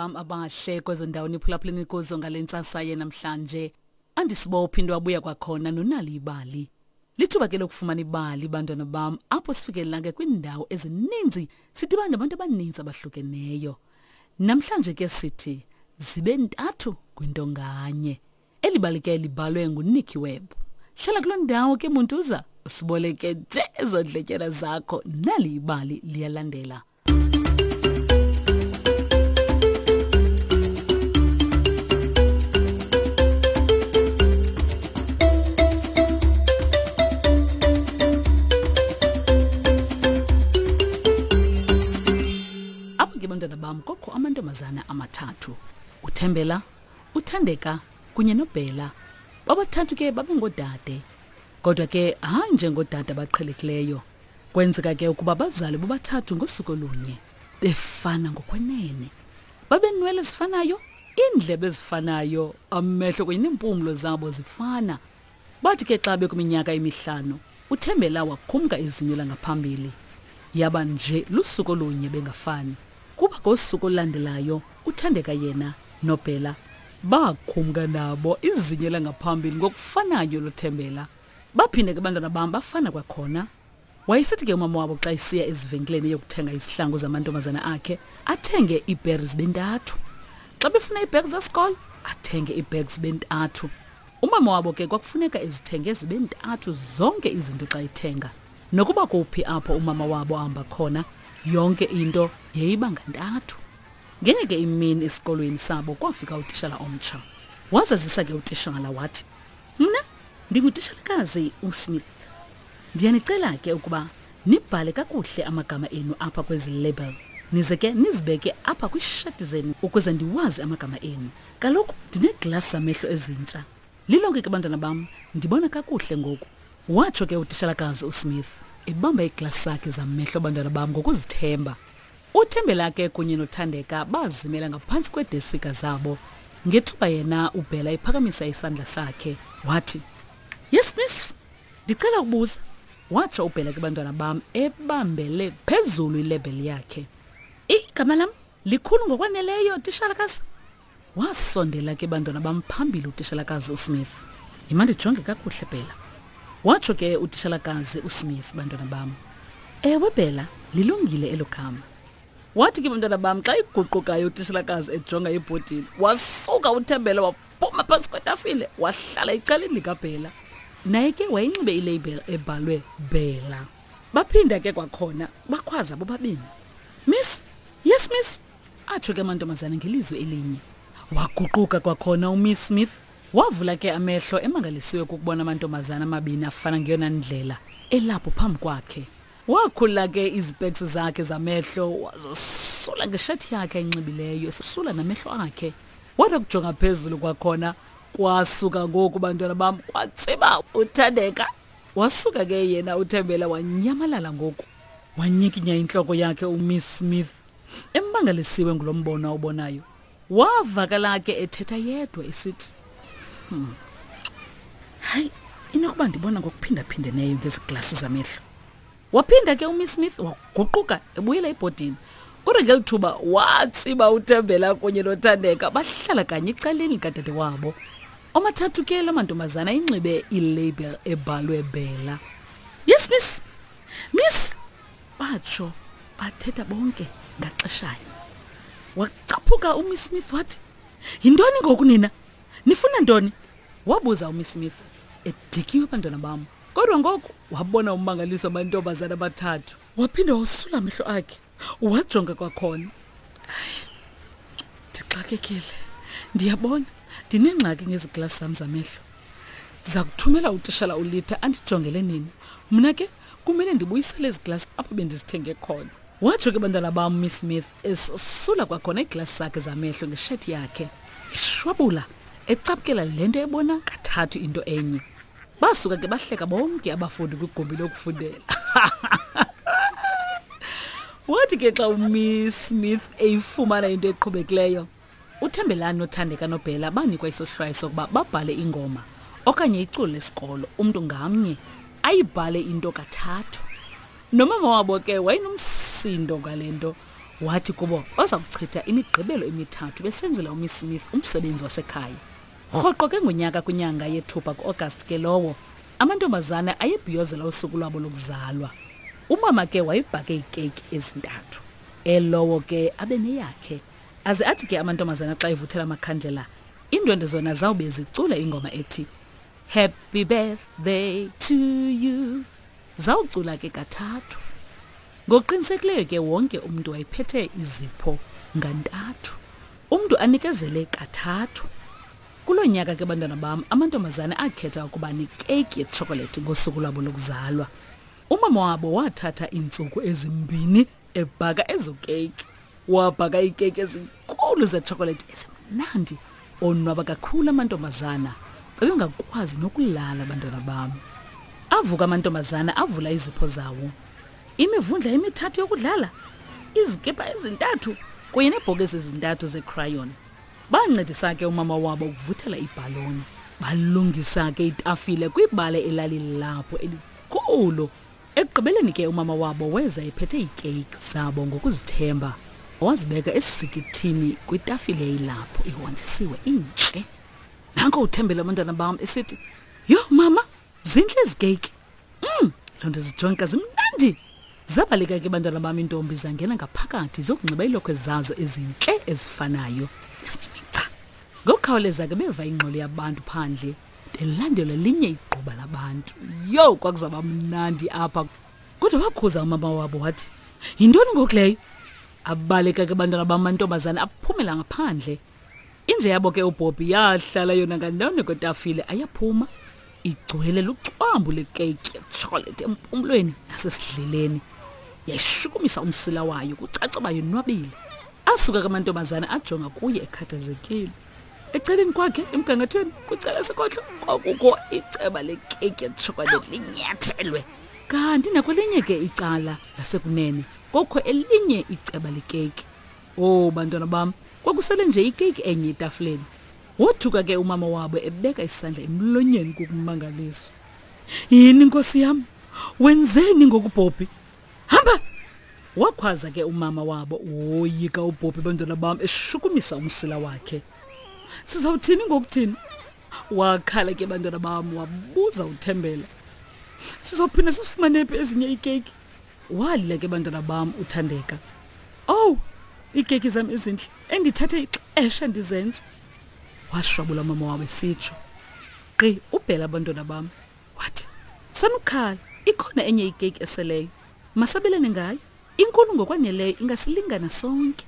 bam abahle kwezo ndawo niphulaphuleni kuzo ngale ntsasa yenamhlanje. Andisibophi into abuya kwakhona nonali ibali. Lithuba ke lokufumana ibali bantwana bam apho sifikelela ke kwiindawo ezininzi sidibana nabantu abaninzi abahlukeneyo. Namhlanje ke sithi zibe ntathu kwinto nganye. Eli bali ke libhalwe nguNicky Webb. Hlala kuloo ndawo ke Muntuza, usiboleke nje ezo ndletyana zakho nali ibali liyalandela. Apho ke bantwana bam kokho amantombazana amathathu, uThembela, uThandeka kunye noBhela. Bobathathu ke babengoodade, kodwa ke hayi njengoodade abaqhelekileyo. Kwenzeka ke ukuba bazale bobathathu ngosuku olunye, befana ngokwenene. Babenwele ezifanayo, iindlebe ezifanayo, amehlo kunye neempumlo zabo zifana. Bathi ke xa bekwiminyaka emihlanu, uThembela wakhumka izinyo langaphambili. Yaba nje lusuku olunye bengafani. Kuba ngosuku olulandelayo uThandeka yena noBhela bakhumka nabo izinyo langaphambili ngokufanayo loThembela. Baphinde ke abantwana bam bafana kwakhona. Wayesithi ke umama wabo xa esiya ezivenkileni eyokuthenga izihlangu zamantombazana akhe athenge iibheri zibe ntathu. Xa befuna iibhegi zesikolo athenge iibhegi zibe ntathu. Umama wabo ke kwakufuneka ezithenge zibe ntathu zonke izinto xa ethenga. Nokuba kuphi apho umama wabo ahamba khona, yonke into yayiba ngantathu. Ngenye ke imini esikolweni sabo kwafika utishala omtsha. Wazazisa ke utishala wathi, Mna ndingutishalakazi uSmith. Ndiyanicela ke ukuba nibhale kakuhle amagama enu apha kwezi label. Nize ke nizibeke apha kwiishati zenu ukuze ndiwazi amagama enu. Kaloku ndineeglasi zamehlo ezintsha. Lilonke ke bantwana bam, ndibona kakuhle ngoku. Watsho ke utishalakazi uSmith ebamba iiglasi zakhe zamehlo bantwana bam ngokuzithemba. UThembela ke kunye noThandeka bazimela ngaphantsi kweedesika zabo. Ngethuba yena uBhela ephakamisa isandla sakhe, wathi, Yes, miss, ndicela ukubuza. Watsho uBhela ke bantwana bam ebambele phezulu ilebheli yakhe. Igama lam likhulu ngokwaneleyo, tishalakazi. Wasondela ke bantwana bam phambili utishalakazi uSmith. Yima ndijonge kakuhle Bhela. Watsho ke utishalakazi uSmith bantwana bam. Ewe Bhela, lilungile elo gama. Wathi ke bantwana bam xa iguqukayo utishalakazi ejonga ebhodini, wasuka uThembela waphuma phantsi kwetafile wahlala ecaleni likaBhela. Naye ke wayinxibe ilabel ebhalwe Bhela. Baphinda ke kwakhona bakhwaza bobabini. Miss, yes miss. Atsho ke amantombazana ngelizwi elinye. Waguquka kwakhona uMiss Smith. Wavula ke amehlo emangalisiwe kukubona amantombazana amabini afana ngeyona ndlela elapho phambi kwakhe. Wakhulula ke izipeks zakhe zamehlo wazosula ngeshethi yakhe ayinxibileyo esosula namehlo akhe. Wada kujonga phezulu kwakhona kwasuka ngoku bantwana bam kwatsiba uThandeka. Wasuka ke yena uThembela wanyamalala ngoku. Wanyikinya intloko yakhe uMiss Smith. Emmangalisiwe ngulo mbono awubonayo, wavakala ke ethetha yedwa esithi, hmm. Hayi, inokuba ndibona ngokuphindaphindeneyo ngezi glasi zamehlo. Waphinda ke uMiss Smith waguquka ebuyela ebhodini. Kodwa ngeli thuba watsiba uThembela kunye noThandeka bahlala kanye ecaleni likadade wabo. Omathathu ke la mantombazana inxibe ilabel ebhalwe Bella. Yes, miss. Miss, batsho bathetha bonke ngaxeshayo wacaphuka umiss Smith wathi yintoni ngoku nina nifuna ntoni wabuza umiss Smith edikiwe abantwana bam kodwa ngoku wabona ummangaliso amantombazana abathathu waphinde wasula amehlo akhe wajonga kwakhona ndixakekile ndiyabona ndinengxaki ngezi glasi zam zamehlo ndiza kuthumela utishala ulitha andijongele nini mna ke kumele ndibuyisele ezi glasi apho bendizithenge khona watsho ke bantwana bam miss Smith esosula kwakhona iiglasi zakhe zamehlo ngeshethi yakhe eshwabula ecaphukela le nto ebona kathathu into enye basuka ke bahleka bonke abafundi kwigumbi lokufundela wathi ke xa umiss Smith eyifumana into eqhubekileyo uThembelani noThandeka noBhela banikwa isohlwayo sokuba babhale ingoma okanye iculo lesikolo umntu ngamnye ayibhale into kathathu nomama wabo ke wayenomsindo ngale nto Wathi kubo baza kuchitha imigqibelo emithathu besenzela uMiss Smith umsebenzi wasekhaya. Rhoqo ke ngonyaka kwinyanga yethupha kuAugust ke lowo, amantombazana ayebhiyozela usuku lwabo lokuzalwa. Umama ke wayebhake iikeyiki ezintathu. Elowo ke abe neyakhe. Aze athi ke amantombazana xa evuthela amakhandlela, iindwendwe zona zawube zicula ingoma ethi Happy birthday to you. Zawucula ke kathathu. Ngokuqinisekileyo ke wonke umntu wayephethe izipho ngantathu. Umntu anikezele kathathu. Kulo nyaka ke bantwana bam, amantombazana akhetha ukuba nekeyiki yetshokolethi ngosuku lwabo lokuzalwa. Umama wabo wathatha iintsuku ezimbini ebhaka ezo keyiki. Wabhaka iikeyiki ezinkulu zetshokolethi ezimnandi. Onwaba kakhulu amantombazana. Babengakwazi nokulala abantwana bam. Avuka amantombazana avula izipho zawo. Imivundla emithathu yokudlala, izikipa ezintathu kunye neebhokisi ezintathu zeecrayon. Bancedisa ke umama wabo ukuvuthela ibhaloni. Balungisa ke itafile kwibala elalilapho elikhulu. Ekugqibeleni ke umama wabo weza ephethe iikeyiki zabo ngokuzithemba. Wazibeka esisikithini kwitafile eyilapho ihonjisiwe intle. Nanko uthembele abantwana bam esithi, "Yho mama, zintle ezi keyiki." Loo nto zijonka zimnandi. Zabaleka ke bantwana bam iintombi zangena ngaphakathi zokunxiba iilokhwe zazo ezintle ezifanayo ezinemigca. Ngokukhawuleza ke beva ingxolo yabantu phandle belandelwa linye igquba labantu. Yho, kwakuzawuba mnandi apha. Kodwa wakhuza umama wabo wathi, yintoni ngoku leyo? Abaleka ke bantwana bam amantombazana aphumela ngaphandle. Inja yabo ke uBobby yahlala yona ngandawoni kwetafile ayaphuma igcwele lucwambu lekeyiki yetshokolete empumlweni nasesidleleni. Yayishukumisa umsila wayo kucaca uba yonwabile. Asuka ke amantombazana ajonga kuye ekhathazekile. Ecaleni kwakhe emgangathweni kwicala sekhohlo kwakukho iceba lekeyiki yetshokolete linyathelwe. Kanti nakwelinye ke icala lasekunene kwakukho elinye iceba lekeyiki. Oh bantwana bam, kwakusele nje ikeyiki enye etafileni. Wothuka ke umama wabo ebeka isandla emlonyeni kukumangaliswa. Yini nkosi yam? Wenzeni ngoku Bobby? Hamba! Wakhwaza ke umama wabo woyika uBobby bantwana bam eshukumisa umsila wakhe. Sizawuthini ngokuthini? Wakhala ke bantwana bam wabuza uThembela. Sizawuphinda sisifumane phi ezinye iikeyiki? Walila ke bantwana bam uThandeka. Owu, iikeyiki zam ezintle endithathe ixesha ndizenza. Washwabula umama wabo esitsho. Gqi ubhela abantwana bam. Wathi, sanukhala, ikhona enye ikeyiki eseleyo. Masabelane ngayo. Inkulu ngokwaneleyo ingasilingana sonke.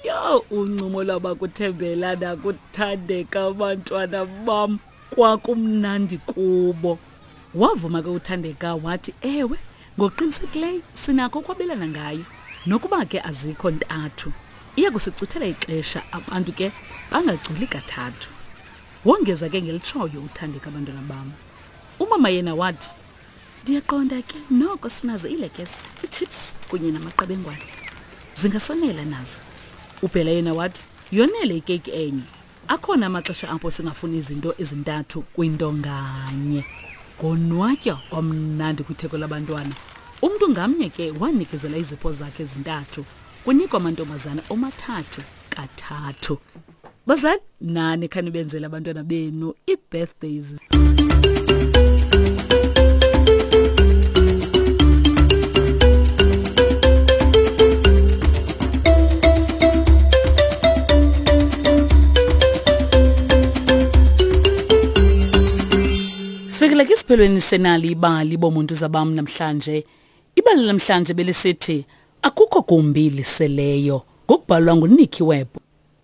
Yho, uncumo lwabakuthembela nakuthandeka abantwana bam kwakumnandi kubo. Wavuma ke uThandeka wathi, ewe, ngokuqinisekileyo sinakho ukwabelana ngayo. Nokuba ke azikho ntathu, iya kusicuthela ixesha abantu ke bangaculi kathathu. Wongeza ke ngelitshoyo uThandeka abantwana bam. Umama yena wathi, ndiyaqonda ke noko sinazo iilekese, iichips kunye namaqebengwana. Zingasonela nazo. Ubhela yena wathi, yonele ikeyiki enye. Akhona amaxesha apho singafuni izinto ezintathu kwinto nganye. Konwatywa kwamnandi kwitheko labantwana. Umntu ngamnye ke wanikezela izipho zakhe ezintathu. Kunikwa amantombazana omathathu kathathu. Bazali, nani khanibenzele abantwana benu ii-birthdays. Sifikile ke esiphelweni senali ibali bomuntu zabam namhlanje. Ibali namhlanje belisithi akukho gumbi liseleyo ngokubhalwa nguNicky Webb.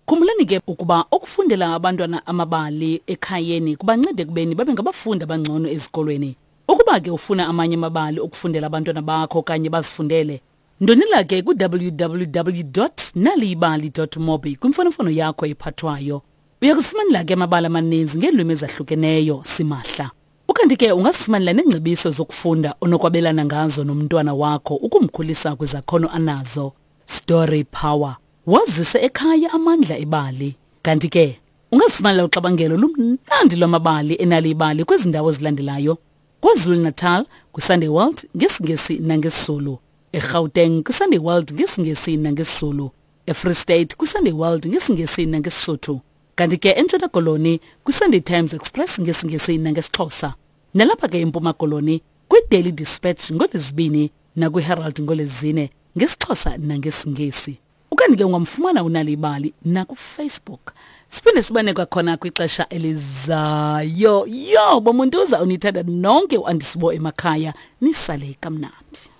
Khumbulani ke ukuba ukufundela abantwana amabali ekhayeni kubanceda ekubeni babe ngabafundi abangcono ezikolweni. Ukuba ke ufuna amanye amabali okufundela abantwana bakho okanye bazifundele, ndonela ke ku-www.naliyibali.mobi kwimfonomfono yakho ephathwayo. Uya kusifumanela ke amabali amaninzi ngeelwimi ezahlukeneyo simahla. Ukanti ke ungazifumanela neengcebiso zokufunda onokwabelana ngazo nomntwana wakho ukumkhulisa kwizakhono anazo. Story Power. Wazise ekhaya amandla ebali. Kanti ke ungazifumanela uxabangelo lumnandi lwamabali enali ibali kwezi ndawo zilandelayo. KwaZulu-Natal, kwiSunday World, ngesiNgesi nangesiZulu. eGauteng kwiSunday World ngesiNgesi nangesiZulu, eFree State kwiSunday World ngesiNgesi nangeSisuthu, kanti ke eNtshona Koloni kwiSunday Times Express ngesiNgesi nangesiXhosa. Nalapha ke eMpuma Koloni kwiDaily Dispatch ngoLwezibini nakwiHerald ngoLwezine ngesiXhosa nangesiNgesi. Ukanti ke ungamfumana uNal'ibali nakuFacebook. Siphinde sibane kwakhona kwixesha elizayo. Yho, bomuntuza unithanda nonke uAndisibo emakhaya, nisale kamnandi.